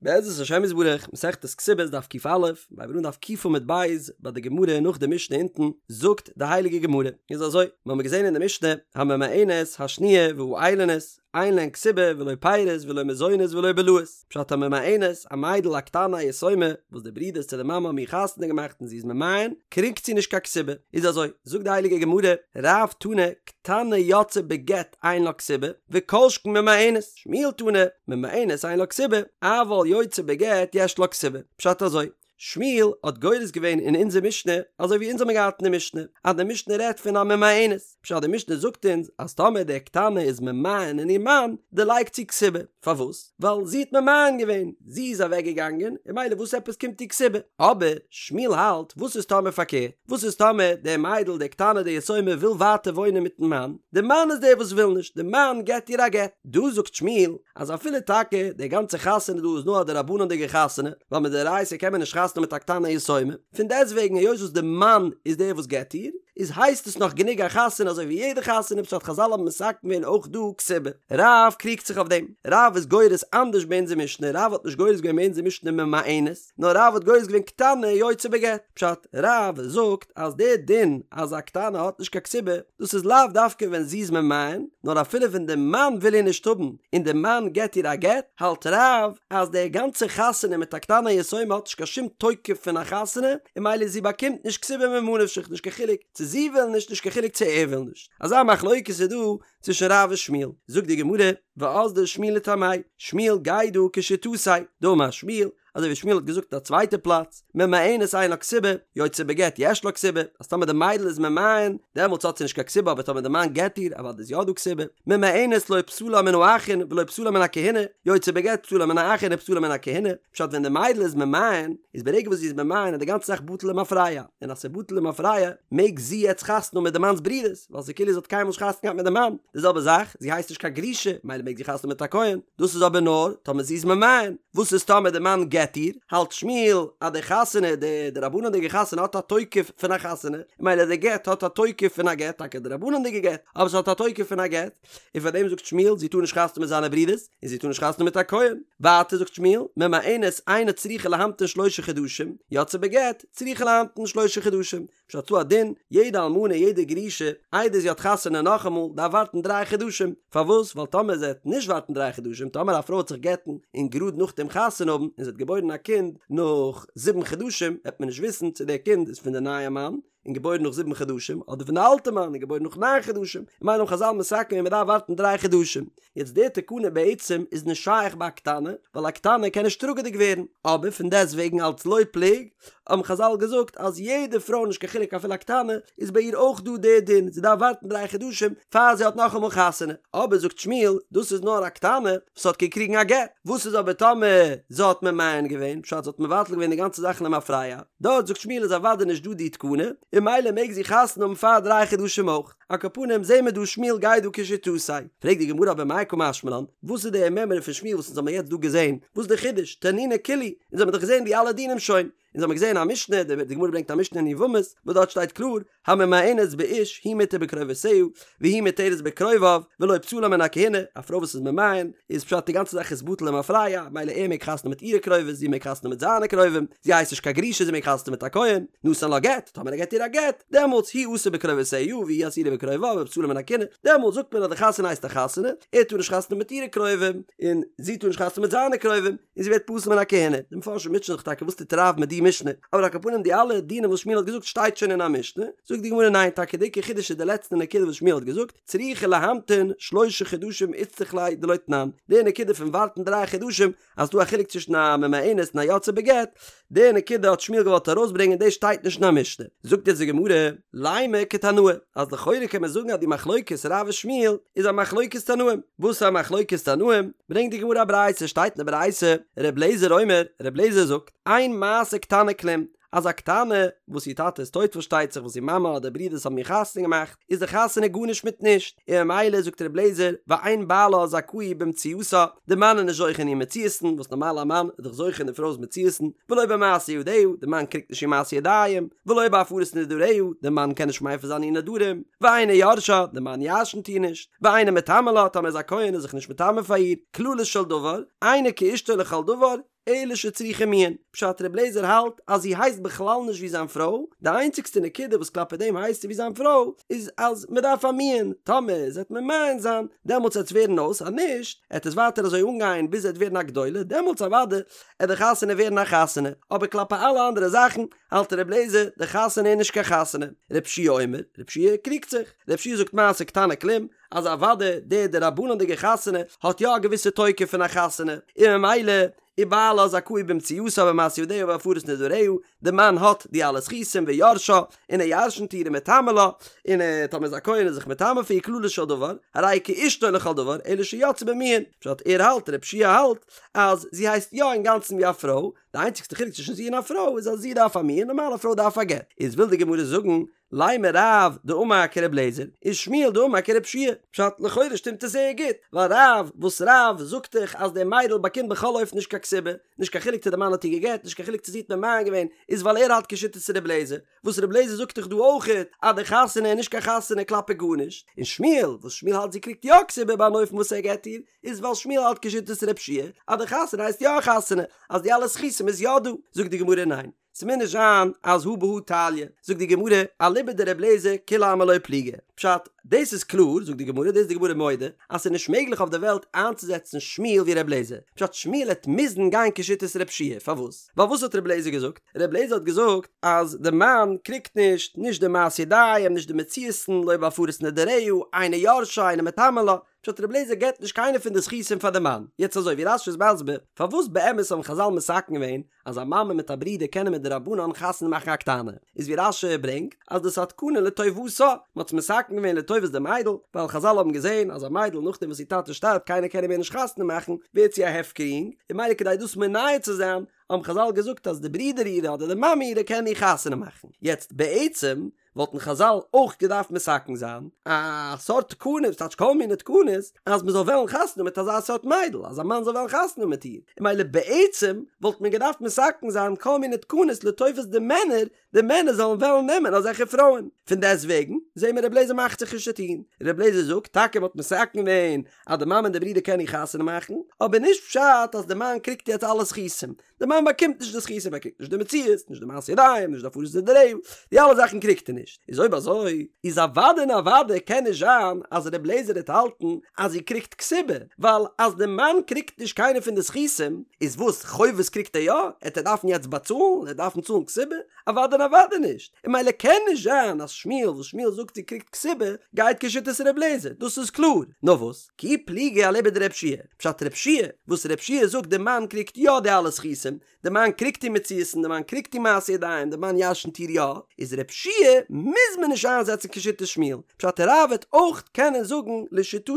בעזרת השם יתברך, מסכת כתובות דף ק"א, מיר הייבן אן דף ק עמוד ב', ביי די גמרא נאך די משנה אונטן, זאגט די הייליגע גמרא, איז אזוי, מיר האבן געזען אין די משנה, הממאנת השניה והאילונית, אין להן כתובה ולא פירות ולא מזונות ולא בלאות, פשט הממאנת, א מיידל א קטנה א יתומה, וואס די ברודערס צו די מאמע האבן איר חתונה געמאכט און זי איז ממאן, קריגט זי נישט קיין כתובה, איז אזוי, זאגט די הייליגע גמרא, רב תני, קטנה יוצאה בגט אין לה כתובה, וכל שכן ממאנת. שמואל תני, ממאנת אין לה כתובה, אבל יוצאה בגט יש לה כתובה. פשט אזוי, שמואל האט גורס געווען אין אונזער משנה אזוי ווי אונז האבן געהאט אין די משנה, אז די משנה רעדט פון א ממאנת, פשט די משנה זאגט אונז אז טאמער די קטנה איז ממאן אין איר מאן, דערלייגט זי כתובה. פארוואס? ווייל זי האט ממאן געווען, זי איז אוועק געגאנגען, און ממילא וואס עפעס קומט איר כתובה? אבער שמואל האלט, וואס איז טאמער פארקערט? וואס איז טאמער די מיידל די קטנה די יתומה וויל ווייטער וואוינען מיטן מאן, די מאן איז דער וואס וויל נישט, די מאן געט איר א גט. דא זאגט שמואל אז אפילו טאקע די גאנצע חתונה דא איז נאר א דרבנן'דיגע חתונה, ווייל מדאורייתא קען מען נישט חתונה מיט א קטנה יתומה, פון דעסטוועגן היות וואס די מאן איז דער וואס געט איר, איז הייסט עס נאך גענוג א חתונה אזוי ווי יעדע חתונה פשט חזל האבן מתקן געווען אויך דא כתובה. רב קריגט זיך אויף דעם. רב איז גורס אנדערש ביי אונזער משנה, רב האט נישט גורס געווען ביי אונזער משנה ממאנת, נאר רב האט גורס געווען קטנה יוצאה בגט. פשט, רב זאגט אז דער דין אז א קטנה האט נישט קיין כתובה, דאס איז לאו דווקא ווען זי איז ממאן, נאר אפילו ווען דער מאן וויל איר נישט האבן און דער מאן געט איר א גט, האלט רב אז די גאנצע חתונה מיט א קטנה יתומה האט נישט קיין שום תוקף פון א חתונה, און ממילא זי באקומט נישט כתובה ממה נפשך נישט קיין חילוק צו זי וויל נישט נישט קיין חילוק צו ער וויל נישט. אזא מחלוקת איז דא צווישן רב און שמואל. זאגט די גמרא, ואזדא שמואל לטעמיה, שמואל גייט דא כשיטתיה, דאמר שמואל, אזוי ווי שמואל האט געזאגט אין א צווייטע פלאץ, ממאנת אין לה כתובה, יוצאה בגט יש לה כתובה, אז טאמער די מיידל איז ממאן, דעמאלטס האט זי נישט קיין כתובה אבער טאמער די מאן גט איר, אוודאי איז יא דא כתובה, ממאנת לא פסלה מן האחין ולא פסלה מן הכהונה, יוצאה בגט פסלה מן האחין ופסלה מן הכהונה, פשט ווען די מיידל איז ממאן, איז ברגע וואס זי איז ממאן איז די גאנצע זאך בטל למפרע, און אז ס'איז בטל למפרע, מעג זי יעצט חתונה האבן מיט די מאנ'ס ברודערס, ווייל ס'איז כאילו זי האט קיינמאל נישט חתונה געהאט מיט די מאן, די זעלבע זאך, זי הייסט נישט קיין גרושה, ממילא מעג זי חתונה האבן מיט א כהן, דאס איז אבער נאר טאמער זי איז ממאן, וואס איז טאמער די מאן גט איר, האלט שמואל אז די חתונה, די דרבנן'דיגע חתונה האט א תוקף פון א חתונה, ממילא די גט האט א תוקף פון א גט, טאקע א דרבנן'דיגע גט, אבער ס'האט א תוקף פון א גט, און פאר דעם זאגט שמואל זי טאר נישט חתונה מיט זיינע ברודערס, און זי טאר נישט חתונה מיט א כהן. ווייטער זאגט שמואל, ממאנת אינה צריכה להמתין שלושה חדשים, יוצאה בגט, צריכה להמתין שלושה חדשים. פשט ס'דא א דין, יעדע אלמנה יעדע גרושה, איידער זי האט חתונה נאכאמאל, דארף ווארטן דריי חדשים. פארוואס? ווייל טאמער זי וועט נישט ווארטן דריי חדשים, טאמער א פרוי וועט זיך גט'ן און גראד נאכדעם חתונה האבן, און זי האט געבוירן א קינד נאך זיבן חדשים, וועט מען נישט וויסן צו דער קינד איז פון די נייע מאן, און געבוירן נאך זיבן חדשים, אדער פון די אלטע מאן און געבוירן נאך ניין חדשים, און ממילא האבן חזל מתקן געווען מען דארף ווארטן דריי חדשים. יעצט די תקנה בעצם איז נישט שייך ביי א קטנה, ווייל א קטנה קען נישט טראגעדיג ווערן, אבער פון דעסט וועגן אלץ לא פלוג, האבן חזל געזאגט אז יעדע פרוי נישט קיין חילוק אפילו א קטנה, איז ביי איר אויך דא די דין, זי דארף ווארטן דריי חדשים פאר זי האט נאכאמאל חתונה, אבער זאגט שמואל, דאס איז נאר א קטנה וואס האט געקריגן א גט, וואס איז אבער טאמער זי האט ממאן געווען, פשט זי האט מבטל געווען די גאנצע זאך למפרע, דארט זאגט שמואל איז אוודאי נישט דא די תקנה, און ממילא מעג זי חתונה האבן פאר דריי חדשים אויך. על כל פנים זעהן מיר דא שמואל גייט דא כשיטתו. פרעגט די גמרא אבער מאי קא משמע לן, וואס איז די מימרא פון שמואל וואס אונז האבן יעצט דא געזעהן, וואס איז די חידוש, תנינא כולהו, אונז האבן דאך געזעהן די אלע דינים שוין, אונז האבן געזעהן א משנה, די גמרא ברענגט א משנה אין יבמות, וואס דארט שטייט קלאר, הממאנת באיש היא מותר בקרובותיה, והוא מותרת בקרוביו, ולא פסולה מן הכהונה, א פרוי וואס איז ממאן, איז פשט די גאנצע זאך איז בטל למפרע, ממילא ער מעג חתונה מיט אירע קרובות, זי מעג חתונה מיט זיינע קרובים, זי הייסט נישט קיין גרושה זי מעג חתונה מיט א כהן, נתן לה גט, טאמער ער געט איר א גט, דעמאלטס היא אסורה בקרובותיה והיא אסורה בקרוביו ופסולה מן הכהונה, דעמאלטס זאגט מען אז די חתונה הייסט א חתונה, ער טאר נישט חתונה מיט אירע קרובים, און זי טאר נישט חתונה מיט זיינע קרובים, און זי ווערט פסול מן הכהונה. די מפרשים מוטשען זיך טאקע וואס טוט רב מיט די משנה, אבער על כל פנים די אלע דינים וואס שמואל האט געזאגט שטייט שוין אין א משנה, זאגט די גמרא ניין טאקע די עיקר חידוש איז די לעצטע נקודה וואס שמואל האט געזאגט, צריכה להמתין שלשה חדשים איצטריך ליה דלא תנן, די נקודה פון ווארטן דריי חדשים אז ס'דא א חילוק צווישן א ממאנת און א יוצאה בגט, די נקודה האט שמואל געוואלט ארויסברענגען דאס שטייט נישט אין א משנה. זאגט יעצט די גמרא, לימא כתנאי, אז לכאורה קען מען זאגן אז די מחלוקת רב און שמואל איז א מחלוקת תנאים, וואס איז א מחלוקת תנאים? ברענגט די גמרא א ברייתא, שטייט אין די ברייתא, ר' לעזער אומר, ר' לעזער זאגט, אין מעשה קטנה כלום, אז א קטנה וואס איר טאטע איז טויט פארשטייט זיך וואס איר מאמע אדער ברודערס האבן איר חתונה געמאכט, איז די חתונה גארנישט מיט נישט, און ממילא זאגט ר' לעזער, ואין בעלה זכאי במציאתה, די מאן איז נישט זוכה אין איר מציאות'ן, וואס נארמאל א מאן איז דאך זוכה אין די פרוי'ס מציאות'ן, ולא במעשה ידיה, די מאן קריגט נישט איר מעשה ידיים, ולא בהפרת נדריה, די מאן קען נישט מפר זיין איר נדרים, ואינו יורשה, די מאן ירש'נט איר נישט, ואינו מטמא לה, טאמער איז א כהן איז זיך נישט מטמא פאר איר, כללו של דבר, אינה כאשתו לכל דבר. אלא שצריכה מיאון, פשט ר' לעזער האלט אז זי הייסט בכלל נישט ווי זיין פרוי, די איינציגסטע נקודה וואס כלפי דעם הייסט זי ווי זיין פרוי איז אז מען דארף א מיאון, טאמער זי עט ממאן זיין דעמאלטס עט עס ווערן אויס אז נישט עט עס ווייטער אזוי אנגיין ביז זי עט ווערן א גדולה דעמאלטס אוודאי עט די חתונה ווערן א חתונה, אבער כלפי אלע אנדערע זאכן האלט ר' לעזער די חתונה איז נישט קיין חתונה, ר' יהושע אומר, ר' יהושע קריגט זיך, ר' יהושע זאגט מעשה קטנה כלום, אז אוודאי די דרבנן'דיגע חתונה האט יא א געוויסע תוקף פון א חתונה, און ממילא ובעלה זכאי במציאתה ובמעשה ידיה ובהפרת נדריה, די מאן האט די אלע זכותים ויורשה, און ער ירשנט איר ומטמא לה, און ער טאמער איז א כהן איז זיך מטמא פאר איר כללו של דבר, הרי היא כאשתו לכל דבר, אלא שיצאה במיאון, פשט ער האלט ר' יהושע האלט אז זי הייסט יא אינגאנצן ווי א פרוי, די איינציגסטע חילוק צווישן זי און א פרוי איז אז זי דארף א מיאון נארמאל א פרוי דארף א גט, איז וויל די גמרא זאגן לימא רב דאמר כר' לעזער ושמואל דאמר כר' יהושע פשט לכאורה שטימט עס זייער גוט, ווייל רב וואס רב זאגט דאך אז די מיידל באקומט בכל אופן נישט קיין כתובה, נישט קיין חילוק צו די מאן האט איר גע'גט, נישט קיין חילוק צו זי האט ממאן געווען, איז ווייל ער האלט כשיטת ר' לעזער, וואס ר' לעזער זאגט דאך דא אויכעט אז די חתונה איז נישט קיין חתונה כלפי גארנישט, און שמואל וואס שמואל האלט זי קריגט יא כתובה ביי אן אופן וואס ער גט איר, איז ווייל שמואל האלט כשיטת ר' יהושע אז די חתונה הייסט יא א חתונה, אז די אלע זכותים איז יא דא, זאגט די גמרא ניין, ס'מוז נישט זיין אז הא בהא תליא, זאגט די גמרא, אליבא דר' אליעזר כולי עלמא לא פליגי, פשט, דאס איז קלאר, זאגט די גמרא, דאס איז די גמרא מודה, אז ס'איז נישט מעגליך אויף די וועלט איינצוזעצן שמואל ווי ר' אליעזר, פשט שמואל העט מוזן גיין כשיטת ר' יהושע, פארוואס? ווייל וואס האט ר' אליעזר געזאגט? ר' אליעזר האט געזאגט אז די מאן קריגט נישט, נישט די מעשי ידיים, נישט די מציאות'ן, לא בהפרת נדריה, אינו יורשה, אינו מטמא לה, פשט ר' אליעזר געבט נישט קיינע פון די זכותים פאר די מאן, יעצט אזוי ווי רש"י איז מסביר, פארוואס באמת האבן חז"ל מתקן געווען אז א מאמע מיט א ברודער קענען מדרבנן חתונה מאכן א קטנה, איז ווי רש"י ברענגט אז דאס א תקנה לטובתה, מען האט עס מתקן געווען לטובת די מיידל, ווייל חז"ל האבן געזען אז א מיידל נאכדעם וואס איר טאטע שטארבט קיינער קען איר מער נישט חתונה מאכן, ווערט זי א הפקר יונג, און ממילא כדי דאס מונע צו זיין, האבן חז"ל געזאגט אז די ברודער אירע אדער די מאמע אירע קען איר חתונה מאכן. יעצט בעצם וואלטן חז"ל אויך געדארפט מתקן זיין א סארט תקנה, ס'טייטש כל מיני תקנות, אז מ'זאל וועלן חתונה מיט אזא סארט מיידל, אז א מאן זאל וועלן חתונה מיט איר, און ממילא בעצם וואלט מען געדארפט מתקן זיין כל מיני תקנות לטובת די מענער, די מענער זאלן וועלן נעמען אזעלכע פרויען. פון דעסט וועגן זעהן מיר ר' לעזער מאכט זיך נישט צו טון, ר' לעזער זאגט טאקע מ'האט מתקן געווען אז די מאמע און די ברודער קענען איר חתונה מאכן, אבער נישט פשט אז די מאן קריגט יעצט אלע זכותים, די מאן באקומט נישט די זכותים, ער קריגט נישט די מציאות, נישט די מעשי ידיים, נישט די הפרת נדריה, די אלע זאכן קריגט ער נישט, איז אויב אזוי, איז אוודאי און אוודאי קען נישט זיין אז ר' לעזער וועט האלטן אז זי קריגט כתובה, ווייל אז די מאן קריגט נישט קיינע פון די זכותים, איז וואס, חובות קריגט ער יא? עט ער דארפן יעצט באצאלן? ער דארפן צאלן כתובה? אוודאי און אוודאי נישט, און ממילא קען נישט זיין אז שמואל וואס שמואל זאגט זי קריגט כתובה, גייט כשיטת ר' לעזער, דאס איז קלאר, נאר וואס? כי פליגי אליבא דר' יהושע, פשט ר' יהושע, וואס ר' יהושע זאגט די מאן קריגט יא די אלע זכותים, די מאן קריגט איר מציאות'ן, די מאן קריגט איר מעשי ידיים, די מאן ירשנט איר יא, איז ר' יהושע מוז מען נישט איינזעצן כשיטת שמואל, פשט רב וועט אויך קענען זאגן לשיטתו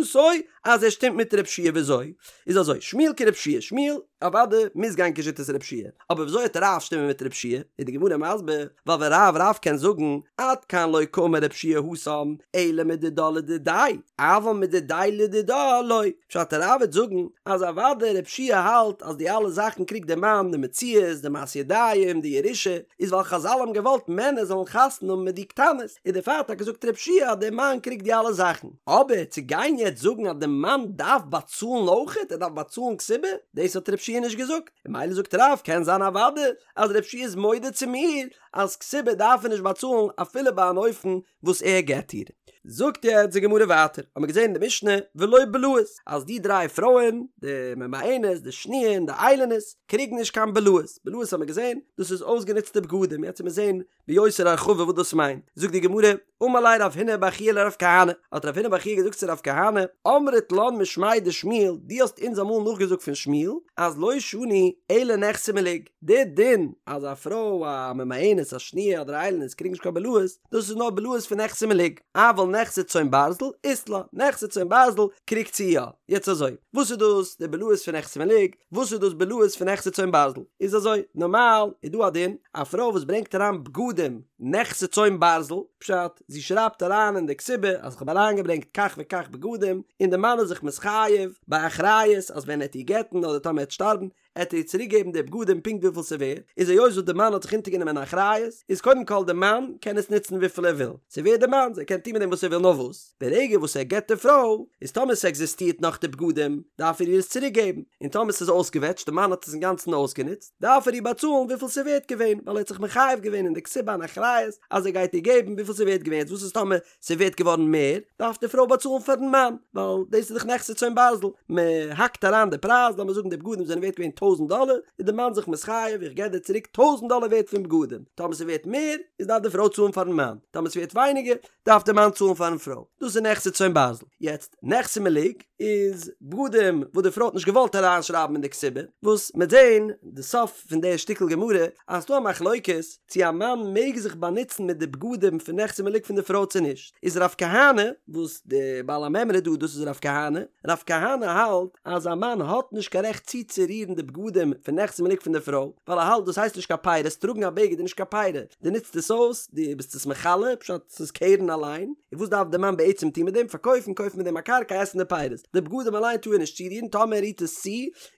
אז ער שטימט מיט ר' יהושע וויאזוי? איז אזוי, שמואל כר' יהושע, שמואל אוודאי מוז גיין כשיטת ר' יהושע, אבער וויאזוי וועט רב שטימען מיט ר' יהושע? איז די גמרא מסביר, ווייל ורב רב קען זאגן, עד כאן לא קאמר ר' יהושע התם, אלא מדידה לדידיה, אבל מדידיה לדידה לא. פשט רב וועט זאגן, אז אוודאי ר' יהושע האלט אז די אלע זאכן קריגט דער מאן, די מציאות, די מעשי ידיים, די ירושה, איז ווייל חזל האבן געוואלט מענער זאלן חתונה האבן מיט די קטנות, און דערפאר האט טאקע געזאגט ר' יהושע אז דער מאן קריגט די אלע זאכן. אבער צו גיין יעצט זאגן אז דער מאן דארף באצאלן אויכעט, ער דארף באצאלן כתובה, דאס האט ר' יהושע נישט געזאגט. און ממילא זאגט רב קען זיין אוודאי אז ר' יהושע איז מודה צו מיר אז כתובה דארף ער נישט באצאלן אפילו ביי אן אופן וואס ער גט איר. זאגט יעצט די גמרא ווייטער, האמיר געזען אין די משנה ולא בלאות אז די דריי פרויען, די ממאנת, די שניה און די איילונית, קריגן נישט קיין בלאות, בלאות האמיר געזען דאס איז אויסגענוצטע בגדים, יעצט וועט מען זען ביותר הרחבה וואס דאס מיינט, זאגט די גמרא, אמר ליה רב הונא בר חייא לרב כהנא, האט רב הונא בר חייא געזאגט צו רב כהנא, אמרת לן משמיה דשמואל, דו האסט אונז אמאל נאכגעזאגט פון שמואל, אז לא שנו אלא נכסי מלוג, די דין אז א פרוי א ממאנת א שניה אדער א איילונית קריגן נישט קיין בלאות, דאס איז נאר בלאות פון נכסי מלוג, אבל נכסי צאן ברזל אית לה, נכסי צאן ברזל קריגט זי יא, יעצט אזוי, וואס איז דאס די בלאות פון נכסי מלוג, וואס איז דאס בלאות פון נכסי צאן ברזל? איז אזוי, נארמאל איז דא א דין, א פרוי וואס ברענגט אריין בגדים נכסי צאן ברזל, פשט, זי שרייבט אריין אין די כתובה אז כ'האב אריינגעברענגט כך וכך בגדים, און די מאן איז זיך מתחייב באחריות אז ווען ער וועט איר גט'ן אדער טאמער ער וועט שטארבן, עט ער איר צוריק געבן די בגדים פונקט וויפיל ס'ווערט, איז היות וואס די מאן האט זיך אונטערגענומען אן אחריות, איז קודם כל די מאן קען עס נוצן וויפיל ער וויל, ס'ווערט די מאנ'ס, ער קען טון מיט דעם וואס ער וויל נאר וואס, ברגע וואס ער גט די פרוי, איז טאמער ס'עקזיסטירט נאך די בגדים, דארף ער איר עס צוריק געבן, און טאמער ס'איז אויסגעוועטשט, די מאן האט עס אינגאנצן אויסגענוצט, דארף ער איר באצאלן וויפיל ס'ווערט געווען, ווייל ער האט זיך מחייב געווען אין די כתובה אן אחריות אז ער גייט איר געבן וויפיל ס'ווערט געווען, יעצט וואס איז טאמער ס'ווערט געווארן מער, דארף די פרוי באצאלן פארן מאן, ווייל דאס איז דאך נכסי צאן ברזל, מען האקט אריין די פרייז, לאמיר זאגן די בגדים זענען ווערט געווען טויזנט דאלער, איז די מאן זיך מתחייב, איך געב דיר צוריק טויזנט דאלער ווערט פון בגדים, טאמער ס'ווערט מער, איז דארף די פרוי צאלן פארן מאן, טאמער ס'ווערט ווייניגער, דארף די מאן צאלן פארן פרוי, דאס איז נכסי צאן ברזל. יעצט, נכסי מלוג איז בגדים וואס די פרוי האט נישט געוואלט אריינשרייבן אין די כתובה, וואס מ'עט זען די סוף פון די שטיקל גמרא אז ס'דא א מחלוקת צו א מאן מעג זיך באנוצן מיט די בגדים פון נכסי מלוג פון די פרוי צו נישט, איז רב כהנא, וואס די בעל המימרא דא דאס איז רב כהנא, רב כהנא האלט אז א מאן האט נישט קיין רעכט צוצורירן די בגדים פון נכסי מלוג פון די פרוי, ווייל ער האלט דאס הייסט נישט קיין פירות, טראגן א בגד איז נישט קיין פירא, דו נוצט עס אויס, דו ביסט עס מכלה, פשט ס'איז קרן אליין, און וואס דארף די מאן בעצם טון מיט דעם, פארקויפן, קויפן מיט דעם א קרקע, עסן די פירות, די בגדים אליין טאר ער נישט צורירן, טאמער ער רירט עס צו,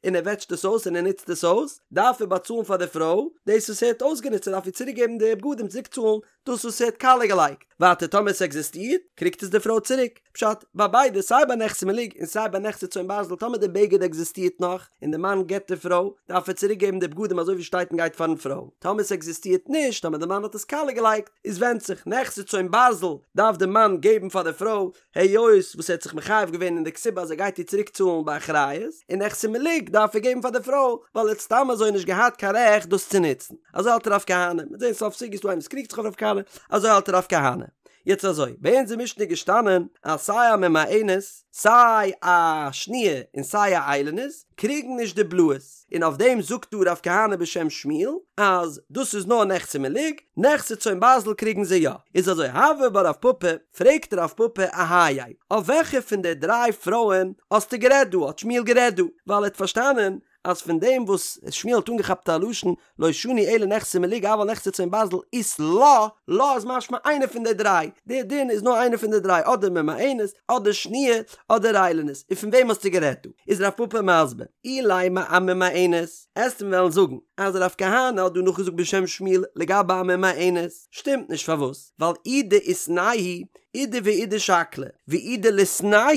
און ער וועטשט עס אויס און ער נוצט עס אויס, דארף ער באצאלן פאר די פרוי דאס וואס ער האט אויסגענוצט, ער דארף איר צוריק געבן די בגדים, צוריק צאלן דאס וואס ער האט קאליע געלייגט. ווייטער טאמער עס עקזיסטירט, קריגט עס די פרוי צוריק. פשט, ביי ביידע, סיי ביי נכסי מלוג און סיי ביי נכסי צאן ברזל, טאמער די בגד עקזיסטירט נאך, און די מאן גט די פרוי, דארף ער צוריק געבן די בגדים אזוי ווי שטייט און גייט פארן פרוי. טאמער עס עקזיסטירט נישט, טאמער די מאן האט עס קאליע געלייגט, איז ווענדט זיך, נכסי צאן ברזל דארף די מאן געבן פאר די פרוי, היות וואס ער האט זיך מחייב געווען אין די כתובה אז ער גייט איר צוריק צאלן באחריות, און נכסי מלוג דארף ער געבן פאר די פרוי, ווייל ער האט סתם אזוי נישט געהאט קיין רעכט דאס צו נוצן. אזוי האלט רב כהנא, מ'וועט זען סוף סוגיא איז דא איינער וואס קריגט זיך אויף רב כהנא, אזוי האלט רב כהנא. יעצט אזוי, ביי אונז אין משנה איז געשטאנען אז סיי א ממאנת, סיי א שניה און סיי א איילונית קריגן נישט די בלאות, און אויף דעם זאגט דא רב כהנא בשם שמואל אז דאס איז נאר נכסי מלוג, נכסי צאן ברזל קריגן זיי יא. איז אזוי, הוי בה רב פפא, פרעגט רב פפא אהייא, אויף וועלכע פון די דריי פרויען האסטו גערעדט דא, האט שמואל גערעדט דא, ווייל ער האט פארשטאנען אז פון דעם וואס שמואל האט אנגעכאפט א לשון לא שנו אלא נכסי מלוג אבל נכסי צאן ברזל אית לה, לה איז משמע איינע פון די דריי, די דין איז נאר איינע פון די דריי אדער ממאנת אדער שניה אדער איילונית, און פון וועם האסטו גערעדט דא? איז רב פפא מסביר, אילימא אממאנת, עסט מיר וועלן זאגן אז רב כהנא האט דא נאכגעזאגט בשם שמואל לגבי א ממאנת, שטימט נישט פארוואס? ווייל אי דאיתנהו אידי ואידי שקלי, ואי דליתנהו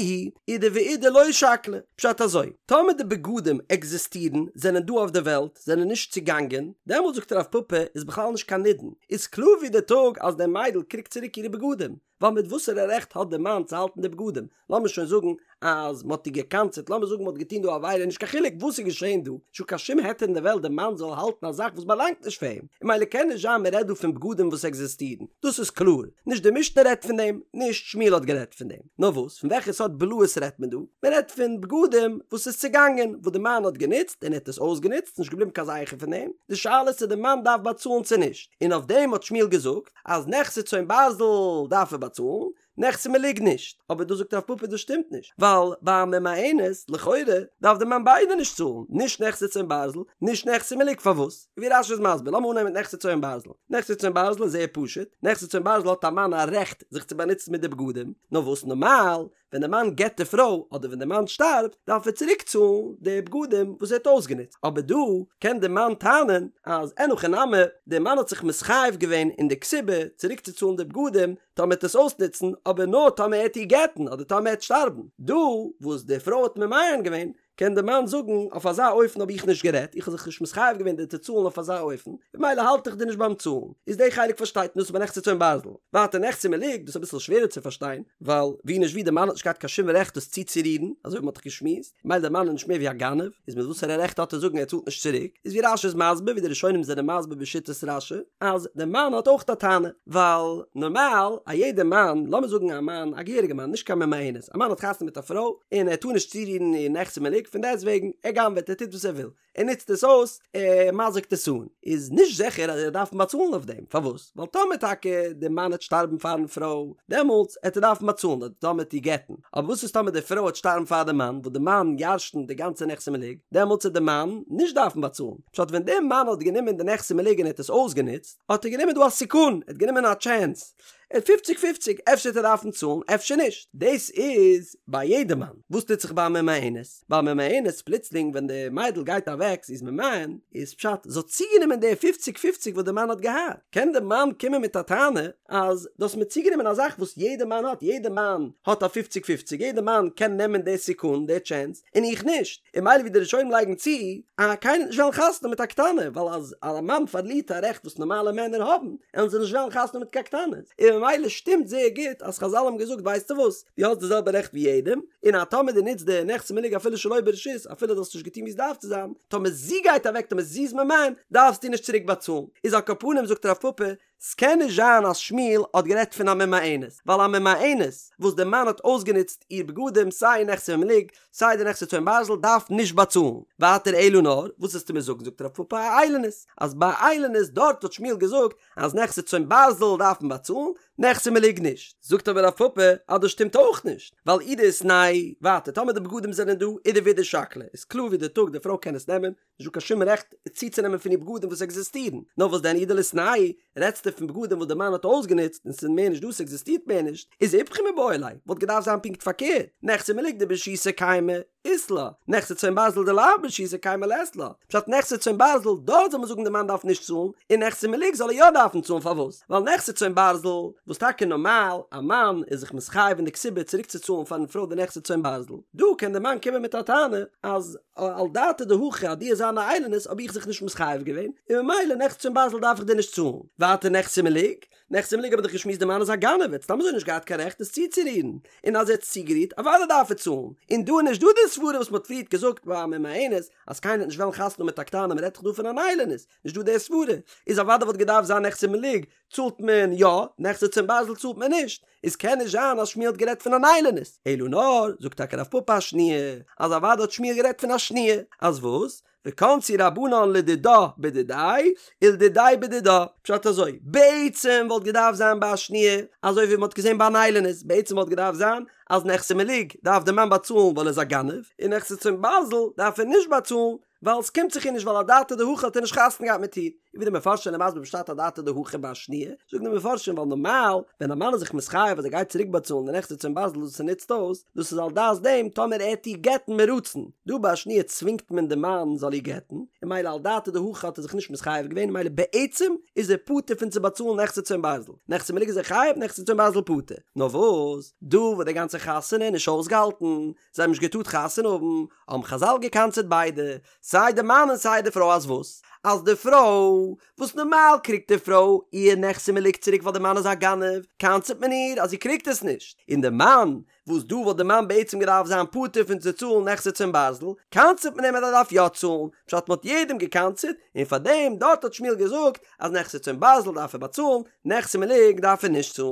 אידי ואידי לא שקלי. פשט אזוי, טאמער די בגדים עקזיסטירן, זענען דא אויף די וועלט, זענען נישט צוגאנגען, דעמאלט זאגט רב פפא איז בכלל נישט קיין נידון, איז קלאר ווי די טאג אז די מיידל קריגט צוריק אירע בגדים, ווייל מיט וואסערע רעכט האט די מאן צו האלטן די בגדים? לאמיר שוין זאגן אז מ'האט איר גע'קנס'עט, לאמיר זאגן מ'האט געטון דא א עבירה, נישט קיין חילוק וואס איז געשען דא, נישטא קיין שום היתר אין די וועלט די מאן זאל האלטן א זאך וואס באלאנגט נישט פאר אים, און ממילא קען נישט זיין מ'רעדט דא פון בגדים וואס עקזיסטירן, דאס איז קלאר, נישט די משנה רעדט פון דעם, נישט שמואל האט גערעדט פון דעם, נאר וואס, פון וועלכע סארט בלאות רעדט מען דא? מ'רעדט פון בגדים וואס איז צעגאנגען, וואס די מאן האט גענוצט און ער האט עס אויסגענוצט, ס'נישט געבליבן קיין זכר פון דעם, די שאלה איז צו די מאן דארף באצאלן צו נישט, און אויף דעם האט שמואל געזאגט אז נכסי צאן ברזל דארף ער באצאלן, נכסי מלוג נישט, אבער דא זאגט רב פפא דאס שטימט נישט, ווייל ביי א ממאנת לכאורה דארף די מאן ביידע נישט צאלן, נישט נכסי צאן ברזל, נישט נכסי מלוג, פארוואס? ווי רש"י איז מסביר, לאמיר אנהייבן מיט נכסי צאן ברזל, נכסי צאן ברזל איז זייער פשוט, נכסי צאן ברזל האט א מאן א רעכט זיך צו באנוצן מיט די בגדים, נאר וואס נארמאל ווען די מאן גט די פרוי אדער ווען די מאן שטארבט דארף ער צוריק צאלן די בגדים וואס ער האט אויסגענוצט, אבער דא קען די מאן טענה'ן אז אין הכי נמי, די מאן האט זיך מתחייב געווען אין די כתובה צוריק צו צאלן די בגדים טאמער ער וועט עס אויסנוצן, אבער נאר טאמער ער וועט איר גט'ן אדער טאמער ער וועט שטארבן, דא וואס די פרוי האט ממאן געווען קען די מאן זאגן אויף אזא אופן האב איך נישט גערעדט, איך האב זיך נישט מתחייב געווען דיר צו צאלן אויף אזא אופן, במילא האלט איך דיר נישט ביים צאלן. איז די חלק פארשטייט מען דאס איז ביי נכסי צאן ברזל. ווייטער נכסי מלוג, דאס איז אביסל שווערער צו פארשטיין, ווייל ווי נישט ווי די מאן האט נישט געהאט קיין שום רעכט דאס צוצורירן, אזוי ווי מען האט דאך געשמועסט, ממילא די מאן איז נישט מער ווי א גנב, איז מיט וואסערע רעכט האט ער זאגן ער צאלט נישט צוריק, איז ווי רש"י איז מסביר, ווי די ראשונים זענען מסביר בשיטת רש"י, אז די מאן האט אויך א טענה, ווייל נארמאל א יעדע מאן, לאמיר זאגן א מאן, א געהעריגע מאן, נישט קיין ממאנת, א מאן האט חתונה מיט א פרוי, און ער טאר נישט צורירן איר נכסי מלוג, פון דעסט וועגן, ער גנב'עט, ער טוט וואס ער וויל, ער נוצט עס אויס, ער מזיק'ט עס אן, איז נישט זיכער אז ער דארף באצאלן אויף דעם, פארוואס? ווייל טאמער טאקע די מאן העט שטארבן פארן פרוי, דעמאלטס העט ער דארפן באצאלן, אדער טאמער העט איר גט'ן, אבער וואס איז טאמער די פרוי העט שטארבן פאר די מאן, וואס די מאן ירש'נט די גאנצע נכסי מלוג, דעמאלטס העט די מאן נישט דארפן באצאלן, פשט ווען די מאן האט גענומען די נכסי מלוג און ער האט עס אויסגענוצט, האט ער גענומען דא א סיכון, ער האט גענומען א טשענס. ער האט פופציג פופציג, אפשר וועט ער דארפן צאלן אפשר נישט. דאס איז ביי יעדע מאן. וואס טוט זיך ביי א ממאנת? ביי א ממאנת פלוצלינג ווען די מיידל גייט אוועק זי איז ממאן, איז פשט זי האט צוגענומען די פופציג פופציג וואס די מאן האט געהאט, קען די מאן קומען מיט א טענה אז דו האסט מיר צוגענומען א זאך וואס יעדע מאן האט, יעדע מאן האט א פופציג פופציג, יעדע מאן קען נעמען די סיכון, די טשענס, און איך נישט, און מילא ווי די ראשונים לייגן צו, אז קיינער וועט נישט וועלן חתונה האבן מיט א קטנה, ווייל אז א מאן פארלירט א רעכט וואס נארמאלע מענער האבן, וועלן זיי נישט וועלן חתונה האבן מיט קיין קטנות, און ממילא שטימט זייער גוט אז חזל האבן געזאגט ווייסטו וואס, דו האסט די זעלבע רעכט ווי יעדעם, און אז טאמער דו נוצט די נכסי מלוג אפילו שלא ברשות, אפילו דו האסט נישט געטון ווי עס דארף צו זיין, טאמער זי גייט אוועק טאמער זי איז ממאן, דארפסטו נישט צוריק באצאלן. איז על כל פנים זאגט רב פפא, ס'קען נישט זיין אז שמואל האט גערעדט פון א ממאנת, ווייל א ממאנת וואס די מאן האט אויסגענוצט איר בגדים סיי נכסי מלוג סיי די נכסי צאן ברזל דארף נישט באצאלן. ווייטער אלא נאר, וואס וועסטו מיר זאגן זאגט רב פפא אאילונית, אז ביי איילונית דארט האט שמואל געזאגט אז נכסי צאן ברזל דארף מען באצאלן, נכסי מלוג נישט. זאגט אבער רב פפא אז דאס שטימט אויך נישט, ווייל אי דאיתנהו, ווייטער טאמער די בגדים זענען דא אידי ואידי שקלי, איז קלאר ווי די טאג די פרוי קען עס נעמען, נישט דא קיין שום רעכט צוצונעמען פון איר בגדים וואס עקזיסטירן, נאר וואס דען אי דליתנהו, רעדסטו פון בגדים וואס די מאן האט אויסגענוצט און ס'איז מער נישט דא ס'עקזיסטירט מער נישט, איז איפכא מיבעי ליה, וואלט געדארפט זיין פונקט פארקערט, נכסי מלוג דברשותו קיימי אית לה, נכסי צאן ברזל דלאו ברשותו קיימי לית לה, פשט נכסי צאן ברזל דארט זאל מען זאגן די מאן דארף נישט צאלן, און נכסי מלוג זאל ער יא דארפן צאלן פארוואס? ווייל נכסי צאן ברזל, וואס טאקע נארמאל א מאן איז זיך מתחייב אין די כתובה צוריקצוצאלן פארן פרוי די נכסי צאן ברזל, דא קען די מאן קומען מיט א טענה אז על דעתא דהכי אז דו וועסט זיין א איילונית האב איך זיך נישט מתחייב געווען, און ממילא נכסי צאן ברזל דארף איך דיר נישט צאלן. ווייטער נכסי מלוג, נכסי מלוג האב איך דאך געשמועסט די מאן איז א גנב ער האט סתם אזוי נישט געהאט קיין רעכט עס צוצורירן, און אז ער האט עס צוגערירט אוודאי דארף ער צאלן, און דא איז נישט דא די סברה וואס מען האט פריערט געזאגט ביי א ממאנת אז קיינער וועט נישט וועלן חתונה האבן מיט א קטנה מען רעדט דאך דא פון אן איילונית, נישט דא די סברה, איז אוודאי וואלט געדארפט זיין נכסי מלוג צאלט מען יא, נכסי צאן ברזל צאלט מען נישט, איז קען נישט זיין אז שמואל האט גערעדט פון אן איילונית, אלא נאר, זאגט טאקע רב פפא אשניה, אז אוודאי האט שמואל גערעדט פון א שניה, אז וואס? וקנסו רבנן לדידה בדידיה ולדידיה בדידה, פשט אזוי, בעצם וואלט געדארפט זיין ביי א שניה, אזוי ווי מען האט געזען ביי אן איילונית, בעצם וואלט געדארפט זיין אז נכסי מלוג דארף די מאן באצאלן ווייל ער איז א גנב, און נכסי צאן ברזל דארף ער נישט באצאלן ווייל ס'קומט זיך איר נישט ווייל אדעתא דהכי האט ער נישט חתונה געהאט מיט איר, און ווי די מפרשים זענען מסביר פשט אדעתא דהכי ביי א שניה, זאגן די מפרשים ווייל נארמאל ווען א מאן איז זיך מתחייב אז ער גייט צוריק באצאלן די נכסי צאן ברזל וואס ער נוצט אויס, דאס איז על דעת דעם טאמער ער וועט איר גט'ן מרצון, דא ביי א שניה צווינגט מען די מאן זאל איר גט'ן, און מילא על דעתא דהכי האט ער זיך נישט מתחייב געווען און מילא בעצם איז ער פטור פון צו באצאלן נכסי צאן ברזל, נכסי מלוג איז ער חייב נכסי צאן ברזל פטור, נאר וואס דא וואס די גאנצע חתונה איז נישט אויסגעהאלטן, זיי האבן נישט געטארט חתונה האבן, האבן חזל געקנס'עט ביידע, סיי די מאן און סיי די פרוי אז וואס? אז די פרוי, וואס נארמאל קריגט די פרוי איר נכסי מלוג צוריק ווייל די מאן איז א גנב, קנס'עט מען איר אז זי קריגט עס נישט, און די מאן, וואס דא וואלט די מאן בעצם געדארפט זיין פטור פון צו צאלן נכסי צאן ברזל, קנס'עט מען אים אז ער דארף יא צאלן, פשט מען האט יעדעם געקנס'עט, און פארדעם דארט האט שמואל געזאגט אז נכסי צאן ברזל דארף ער באצאלן, נכסי מלוג דארף ער נישט צאלן.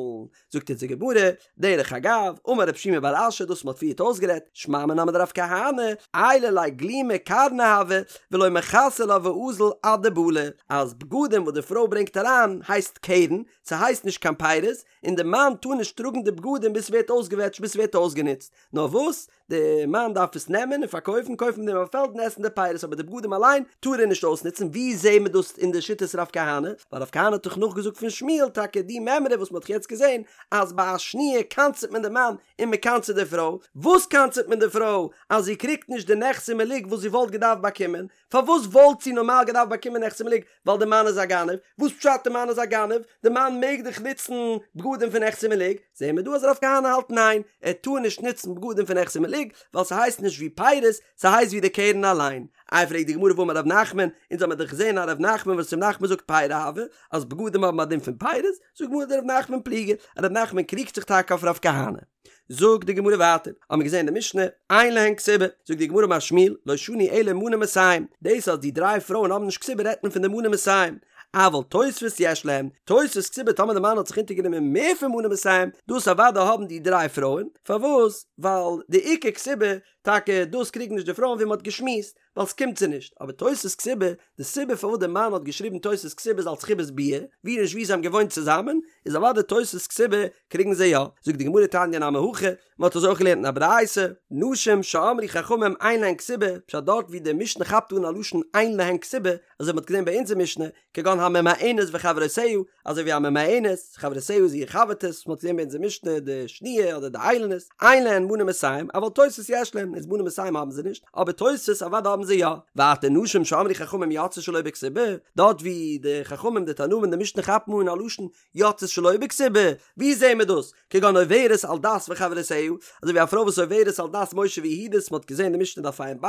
זאגט אונז די גמרא, דרך אגב, אמר רב שימי בר אשי דאס מ'האט פריערט אויסגערעדט, שמע מינה מדרב כהנא, עיילא ליה גלימא קרנא הוה, ולא מכסי לה ואזיל עד דבלי, אז בגדים וואס די פרוי ברענגט אריין הייסט קרן, ס'הייסט נישט קיין פירות, און די מאן טאר נישט טראגן די בגדים ביז ס'ווערט אויסגעוועטשט ביז ס'ווערט אויסגענוצט, נאר וואס? די מאן דארף עס נעמען און פארקויפן, קויפן מיט דעם א פעלד און עסן די פירות, אבער די בגדים אליין טאר ער נישט אויסנוצן, ווי זעהן מיר דאס אין די שיטת רב כהנא? ווייל רב כהנא האט דאך נאכגעזאגט פון שמואל טאקע די מימרא וואס מען האט יעצט געזעהן אז ביי א שניה קנס'עט מען די מאן און מען קנס'עט די פרוי, וואס קנס'עט מען די פרוי? אז זי קריגט נישט די נכסי מלוג וואס זי וואלט געדארפט באקומען, פארוואס וואלט זי נארמאל געדארפט באקומען נכסי מלוג? ווייל די מאן איז א גנב, וואס פשט די מאן איז א גנב? די מאן מעג דאך נוצן בגדים פון נכסי מלוג, זעהן מיר דא אז רב כהנא האלט ניין, ער טאר נישט נוצן בגדים פון נכסי מלוג, ווייל ס'הייסט נישט ווי פירות, ס'הייסט ווי די קרן אליין. איי פרעגט די גמרא והאמר רב נחמן, אונז האמיר דאך געזעהן א רב נחמן וואס רב נחמן זאגט פירי הוו, אז בגדים האבן א דין פון פירות, זאגט די גמרא דרב נחמן פליגי, רב נחמן קריגט זיך טאקע אויף רב כהנא. זאגט די גמרא ווייטער, האבן מיר געזען אין די משנה, אין להן כתובה, זאגט די גמרא אמר שמואל, לא שנו אלא מנה מאתים, דאס אז די דריי פרויען האבן נישט כתובה רעדט מען פון די מנה מאתים, אבל תוספת יש להן, תוספת כתובה טאמער די מאן האט זיך אונטערגענומען מער פון מנה מאתים, דאס אוודאי האבן די דריי פרויען, פארוואס? ווייל די עיקר כתובה. טאקע דאס קריגן נישט די פרויען ווי מען האט געשמועסט, ווייל ס'קומט זיי נישט, אבער תוספת כתובה, די סיבה פארוואס די מאן האט געשריבן תוספת כתובה איז אלס חיבת ביאה, ווי נישט ווי זיי האבן געוואוינט צוזאמען, איז אוודאי תוספת כתובה קריגן זיי יא, זאגט די גמרא תניא נמי הכי, מען האט אזוי אויך געלערנט אין א ברייתא, נשים שאמרו חכמים אין להן כתובה, פשט דארט ווי די משנה כאפט אן א לשון אין להן כתובה, אזוי ווי מען האט געזען ביי אונזער משנה, כגון הממאנת וחברותיה, אזוי ווי א ממאנת, חברותיה איז איר חבר'טעס, מען האט געזען ביי אונזער משנה די שניה אדער די איילונית, אין להן מנה מאתים, אבל תוספת יש להן, איז מנה מאתים האבן זיי נישט, אבער תוספת אוודאי האבן זיי יא. ווייטער נשים שאמרו חכמים יוצאות שלא בכתובה, דארט ווי די חכמים די תנאים אין די משנה כאפן אן א לשון יוצאות שלא בכתובה, ווי זעהן מיר דאס? כגון עוברת על דת וחברותיה, אזוי ווי א פרוי וואס עוברת על דת משה ויהודית, מען האט געזען די משנה דף ע"ב,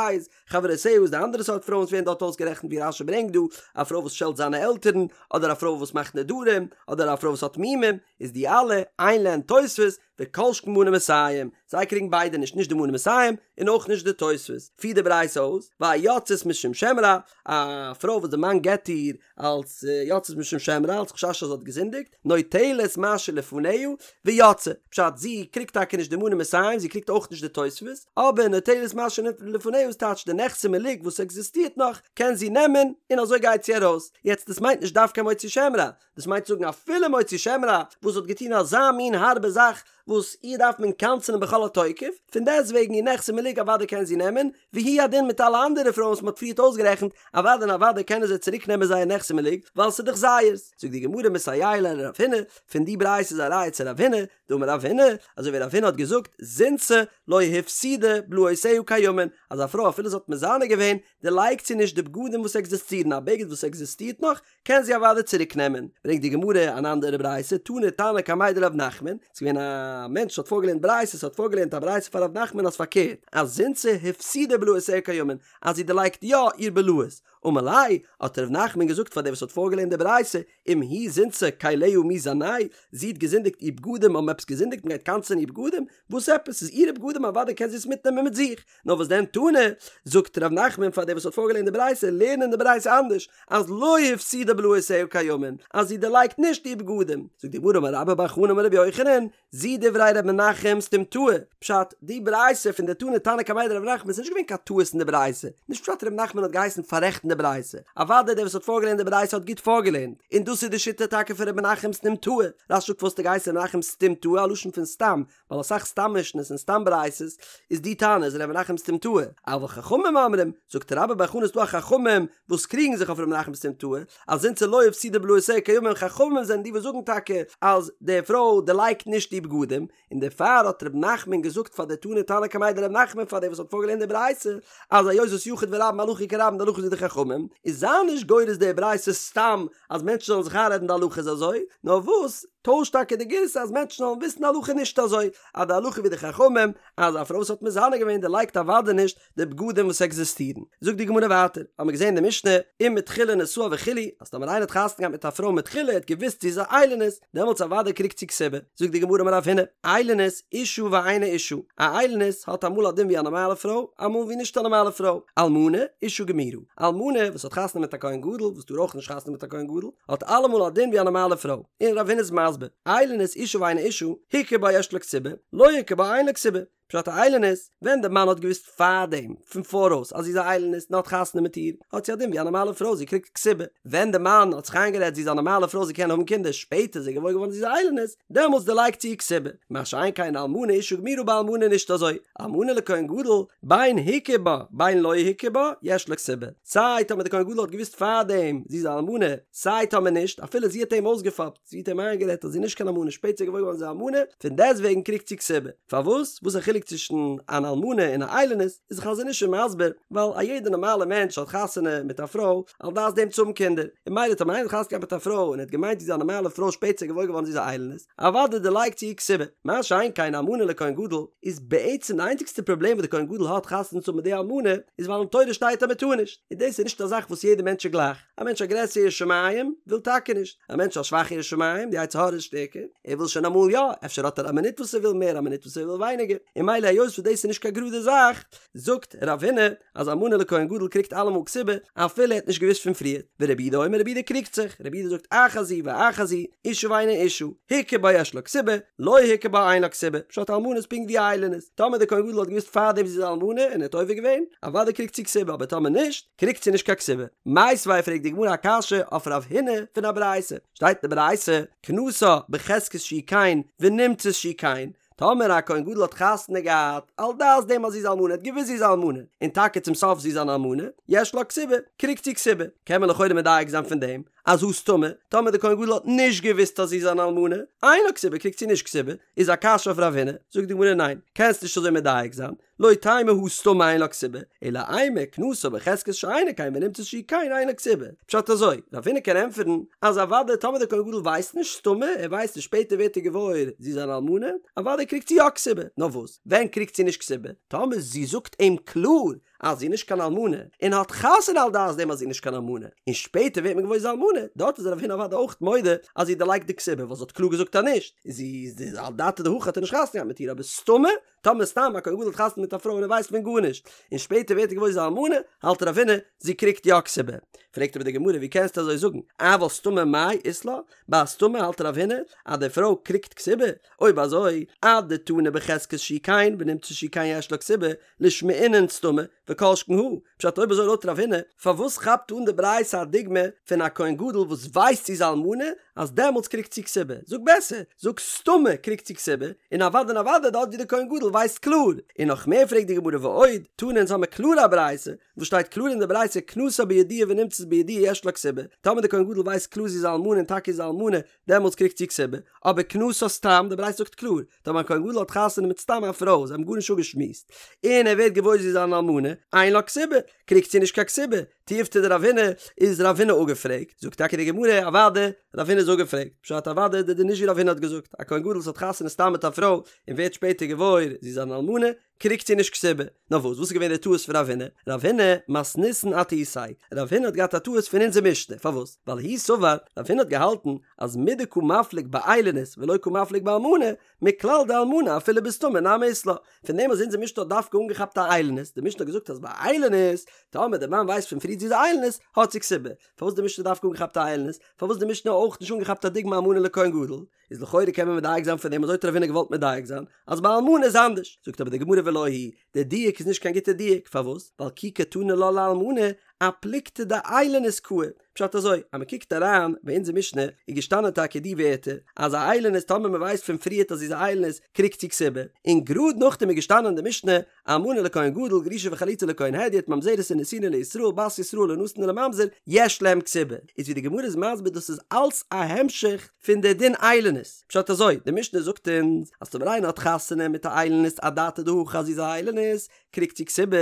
חברותיה איז די אנדערע סארט פרויען וואס ווערן דארט אויסגערעכנט ווי רש"י ברענגט דא, א פרוי וואס שעלט זיינע עלטערן, אדער א פרוי וואס מאכט נדרים, אדער א פרוי וואס האט מומים, איז די אלע, אין להן תוספת, וכל שכן מנה מאתים, זיי קריגן ביידע נישט, נישט די מנה מאתים, און אויך נישט די תוספת. פירט די ברייתא אויס, והיוצאת משום שם רע, א פרוי וואס די מאן גט איר אלס יוצאת משום שם רע, אלס חשש אז זי האט געזינדיגט, נוטלת מה שלפניה ויוצאה, פשט זי קריגט טאקע נישט די מנה מאתים, זי קריגט אויך נישט די תוספת, אבער נוטלת מה שלפניה איז טייטש די נכסי מלוג וואס עקזיסטירט נאך קען זי נעמען און אזוי גייט זי ארויס, יעצט דאס מיינט נישט דווקא מוציא שם רע, דאס מיינט זאגן אפילו מוציא שם רע וואס האט געטון אזא מין הארבע זאך וואס איר דארף מען קנס'ענען בכל התוקף, פון דעסטוועגן איר נכסי מלוג אוודאי קען זי נעמען, והוא הדין מיט אלע אנדערע פרויען וואס מ'האט פריערט אויסגערעכנט, אוודאי און אוודאי קענען זיי צוריק נעמען זייער נכסי מלוג, ווייל ס'איז דאך זייערס. זאגט די גמרא מסייע ליה לרב הונא, פון די ברייתא איז א ראיה צו רב הונא, דאמר רב הונא, אזוי ווי רב הונא האט געזאגט, זינתה לא הפסידה בלאותיה קיימין, אז א פרוי אפילו זי האט מזנה געווען, דערלייגט זי נישט די בגדים וואס עקזיסטירן, א בגד וואס עקזיסטירט נאך, קען זי אוודאי צוריק נעמען. ברענגט די גמרא אן אנדערע ברייתא, תני תנא קמיה דרב נחמן, ס'איז געווען א מענטש וואס האט פארגעלערנט ברייתות, האט פארגעלערנט א ברייתא פאר רב נחמן אז פארקערט, אז זינתה הפסידה בלאותיה קיימין, אז זי דערלייגט יא איר בלאות. אמר ליה, האט רב נחמן געזאגט פאר דער וואס האט פארגעלערנט די ברייתא, אם היא זינתה כליה מי זנאי, זי האט געזינדיגט איר בגדים האבן עפעס געזינדיגט מ'גייט קנס'ען איר בגדים? וואס עפעס? ס'איז אירע בגדים אוודאי קען זי עס מיטנעמען מיט זיך. נאר וואס דען תני, זאגט ר' נחמן פאר דער וואס האט פארגעלערנט די ברייתא, לערן אין די ברייתא אנדערש, אז לא הפסידה בלאותיה קיימין, אז זי דערלייגט נישט איר בגדים. זאגט די גמרא אמר רבה בר חנה אמר רבי יוחנן, זו דברי ר' מנחם סתומתאה, פשט, די ברייתא פון די תני תנא קמיה דרב נחמן איז נישט געווען קיין טעות אין די ברייתא, נישט פשט ר' נחמן האט געהייסן פאררעכטן די ברייתא, אוודאי דער וואס האט פארגעלערנט די ברייתא האט גוט פארגעלערנט, און דאס איז די שיטה טאקע פון ר' מנחם סתומתאה, רש"י זאגט פארוואס האט ער געהייסן ר' מנחם סתומתאה א לשון פון סתם, ווייל אסאך סתם משנה'ס און סתם ברייתות איז די תנא איז ר' מנחם סתומתאה, אבל חכמים אומרים, זאגט רבה בר חנה ס'דא א חכמים וואס קריגן זיך אויף ר' מנחם סתומתאה, אז זינתה לא הפסידה בלאותיה קיימין חכמים זענען די וואס זאגן טאקע אז די פרוי דערלייגט נישט די בגדים, און דערפאר האט ר' נחמן געזאגט פאר די תני תנא קמיה דרב נחמן פאר דער וואס האט פארגעלערנט די ברייתא אז היות וואס יחיד ורבים הלכה כרבים די הלכה איז ווי די חכמים, איז זיי נישט גורס די ברייתא סתם אז מענטשן זאלן זיך איינרעדן די הלכה איז אזוי, נאר וואס? טוישט טאקע די גירסא אז מענטשן זאלן וויסן די הלכה נישט אזוי, אז די הלכה ווי די חכמים, אז א פרוי וואס האט מזנה געווען דערלייגט אוודאי נישט די בגדים וואס עקזיסטירן. זאגט די גמרא ווייטער, האבן מיר געזען אין די משנה, אם מתחילה נשאה וכו', אז טאמער איינער האט חתונה געהאט מיט א פרוי מתחילה, ער האט געוואוסט זי איז א איילונית, דעמאלטס אוודאי קריגט זי כתובה. זאגט די גמרא אמר רב הונא, איילונית אישה ואינה אישה, א איילונית האט אמאל א דין ווי א נארמאלע פרוי, אמאל ווי נישט א נארמאלע פרוי, אלמנה, אישה גמורה, אלמנה וואס האט חתונה מיט א כהן גדול, וואס טאר אויך נישט חתונה מיט א כהן גדול, האט אלעמאל א דין ווי א נארמאלע פרוי, און רב הונא איז מסביר, איילונית אישה ואינה אישה, הכיר בה יש לה כתובה, לא הכיר בה אין לה כתובה, פשט א איילונית, ווען די מאן האט געוואוסט פארדעם, פון פאראויס, אז זי איז א איילונית און האט חתונה מיט איר, האט זי א דין ווי א נארמאלע פרוי, זי קריגט כתובה, ווען די מאן האט זיך איינגערעדט זי איז א נארמאלע פרוי זי קען האבן קינדער, שפעטער איז ער געוואויר געווארן זי איז א איילונית, דעמאלטס דערלייגט זי איר כתובה, מה שאין כן אלמנה אישה גמורה ביי אלמנה נישט אזוי, אלמנה לכהן גדול, בין הכיר בה בין לא הכיר בה, יש לה כתובה. סיי טאמער די כהן גדול האט געוואוסט פארדעם זי איז א אלמנה, סיי טאמער נישט, אפילו זי האט אים אויסגעפאפט, זי האט אים איינגערעדט אז זי איז נישט קיין אלמנה, שפעטער איז געוואויר געווארן זי איז א אלמנה, פון דעסטוועגן קריגט זי כתובה. פארוואס? וואס איז א חילוק צווישן אן אלמנה און א איילונית? איז די חזון איש מסביר, ווייל א יעדער נארמאלער מענטש האט חתונה מיט א פרוי על דעת דעם צו האבן קינדער, און ממילא טאמער איינער האט חתונה געהאט מיט א פרוי און ער האט געמיינט זי איז א נארמאלע פרוי שפעטער איז געוואויר געווארן זי איז א איילונית, אוודאי דערלייגט זי איר כתובה. מה שאין כן אלמנה לכהן גדול, איז בעצם די איינציגסטע פראבלעם וואס די כהן גדול האט חתונה צו האבן מיט די אלמנה, איז ווייל אין תורה שטייט אז מען טאר נישט, און דאס איז נישט א זאך וואס יעדער מענטש איז גלייך, א מענטש א גרעסערע ירא שמים וויל טאקע נישט, א מענטש א שוואכע ירא שמים, די יצר הרע איז שטערקער, ער וויל שוין אמאל יא, אפשר האט ער א מינוט וואס ער וויל מער א מינוט וואס ער וויל ווייניגער, און. און ממילא היות וואס דאס איז נישט קיין גראדע זאך, זאגט רב הונא אז אלמנה לכהן גדול קריגט אלעמאל כתובה אפילו ער האט נישט געוואוסט פון פריער, ורבי יהודה אומר רבי יהודה קריגט זיך, רבי יהודה זאגט אחת זו ואחת זו, אשה ואינה אשה, הכיר בה יש לה כתובה, לא הכיר בה אין לה כתובה, פשט אלמנה איז פונקט ווי א איילונית, טאמער דער כהן גדול האט געוואוסט פארדעם זי איז אלמנה און ער האט עובר געווען, אוודאי קריגט זי כתובה אבער טאמער נישט, קריגט זי נישט קיין כתובה. מיתיבי פרעגט די גמרא א קשיא אויף רב הונא פון א ברייתא, שטייט אין די ברייתא, כנסה בחזקת שהיא כן ונמצאת שהיא כן, טאמער א כהן גדול האט חתונה געהאט על דעת דעם אז זי איז אלמנה, ער האט געוואוסט זי איז אלמנה, און טאקע צום סוף זי איז אן אלמנה, יש לה כתובה, קריגט זי כתובה. קען מען לכאורה מדייק זיין פון דעם, אז הא סתמא, טאמער דער כהן גדול האט נישט געוואוסט אז זי איז אן אלמנה, אין לה כתובה קריגט זי נישט כתובה, איז א קשיא אויף רב הונא, זאגט די גמרא ניין, קענסט נישט אזוי מדייק זיין, לא תימא הא סתמא אין לה כתובה, אלא אימא כנסה בחזקת שאינה כן ונמצאת שהיא כן אין לה כתובה. פשט אזוי, רב הונא קען ענטפערן אז אוודאי טאמער דער כהן גדול ווייסט נישט סתמא, ער ווייסט נישט שפעטער ווערט ער געוואויר זי איז אן אלמנה, אוודאי קריגט זי יא כתובה, נאר וואס ווען קריגט זי נישט כתובה? טאמער זי זאגט אים קלאר אז זי איז נישט קיין אלמנה, און האט חתונה על דעת דעם אז זי איז נישט קיין אלמנה, און שפעטער ווערט מען געוואויר זי איז אלמנה, דארט איז רב הונא אוודאי אויך מודה אז זי דערלייגט די כתובה ווייל זי האט קלאר געזאגט אז נישט, זי איז אדעתא דהכי האט ער נישט חתונה געהאט מיט איר אבער סתמא טאמער סתם א כהן גדול האט חתונה מיט א פרוי און ער ווייסט פון גארנישט, און שפעטער ווערט ער געוואויר זי איז אלמנה, האלט רב הונא, זי קריגט יא כתובה. פרעגט אבער די גמרא ווי קענסטו אזוי זאגן, אבל סתמא מאי אית לה, ביי א סתמא האלט רב הונא אז די פרוי קריגט כתובה, אויב אזוי, אדתני בחזקת שהיא כן ונמצאת שהיא כן יש לה כתובה, לישמעינן סתמא, וכל שכן הא, פשט אויב אזוי לויט רב הונא, פארוואס כאפט אן די ברייתא א דוגמא פון א כהן גדול וואס ווייסט זי איז אלמנה אז דעמאלטס קריגט זי כתובה, זאג בעסער, זאג סתמא קריגט זי כתובה, און אוודאי און אוודאי דארט ווי די כהן גדול ווייסט קלאר, און נאך מער פרעגט די גמרא ועוד, תנא אונז האמיר קלאר א ברייתא, וואס שטייט קלאר אין די ברייתא כנסה בידוע ונמצאת בידוע יש לה כתובה, טאמער די כהן גדול ווייסט קלאר זי איז אלמנה און טאקע איז אלמנה, דעמאלטס קריגט זי כתובה, אבער כנסה סתם, די ברייתא זאגט קלאר, טאמער א כהן גדול האט חתונה מיט סתם א פרוי, זיי האבן גארנישט אפגעשמועסט, און ער ווערט געוואויר זי איז אן אלמנה, אין לה כתובה, קריגט זי נישט קיין כתובה, תיובתא דרב הונא, איז רב הונא אפגעפרעגט, זאגט טאקע די גמרא, אוודאי, רב הונא איז אפגעפרעגט, פשט אוודאי די דין נישט ווי רב הונא האט געזאגט, א כהן גדול וואס האט חתונה סתם מיט א פרוי, און ווערט שפעטער געוואויר זי איז אן אלמנה, קריגט זי נישט כתובה. נאר וואס? וואס איז געווען די טעות פון רב הונא? רב הונא, מתניתין אטעיתיה. רב הונא האט געהאט א טעות פון אונזער משנה. פארוואס? ווייל הוא סבר, רב הונא האט געהאלטן אז מדקא מפליג באיילונית ולא קא מפליג באלמנה, מכלל דאלמנה אפילו בסתמא נמי אית לה. פון דעם אז אונזער משנה האט דווקא אנגעכאפט א איילונית, די משנה האט געזאגט אז ביי איילונית, טאמער די מאן ווייסט פון פריער זי איז א איילונית, האט זי כתובה. פארוואס די משנה דווקא אנגעכאפט א איילונית? פארוואס די משנה אויך נישט אנגעכאפט א דוגמא אלמנה לכהן גדול? איז לכאורה קען מען מדייק זיין פון דעם אזוי האט רב הונא געוואלט מדייק זיין אז ביי אלמנה איז אנדערש, זאגט אבער די גמרא ולא היא, די דיוק איז נישט קיין גוטע דיוק, פארוואס? ווייל כי קתני לה לאלמנה אפלוגתא דאיילונית קאי, פשט אזוי, אז מען קוקט אריין ביי אונזער משנה איז געשטאנען טאקע די ווערטער אז א איילונית טאמער מען ווייסט פון פריערט אז זי איז א איילונית קריגט זי כתובה, און גראד נאכדעם איז געשטאנען אין די משנה אלמנה לכהן גדול גרושה וחלוצה לכהן הדיוט ממזרת ונתינה לישראל בת ישראל לנתין ולממזר יש להם כתובה איז ווי די גמרא איז מסביר דאס איז אלס א המשך פון די דין איילונית פשט אזוי די משנה זאגט אונז אז טאמער איינער האט חתונה מיט א איילונית אדעתא דהכי אז זי איז א איילונית קריגט זי כתובה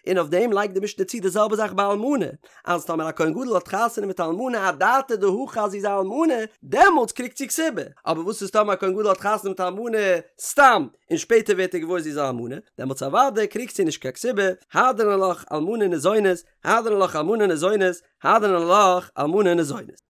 און אויף דעם לייגט די משנה צו די זעלבע זאך ביי אלמנה אז טאמער א כהן גדול האט חתונה מיט א אלמנה אדעתא דהכי אז זי איז א אלמנה דעמאלטס קריגט זי כתובה אבער וואס איז טאמער א כהן גדול האט חתונה מיט א אלמנה סתם און שפעטער ווערט ער געוואויר זי איז א אלמנה, דעמאלטס אוודאי קריגט זי נישט קיין כתובה, הדרן עלך אלמנה ניזונת, הדרן עלך אלמנה ניזונת, הדרן עלך אלמנה ניזונת.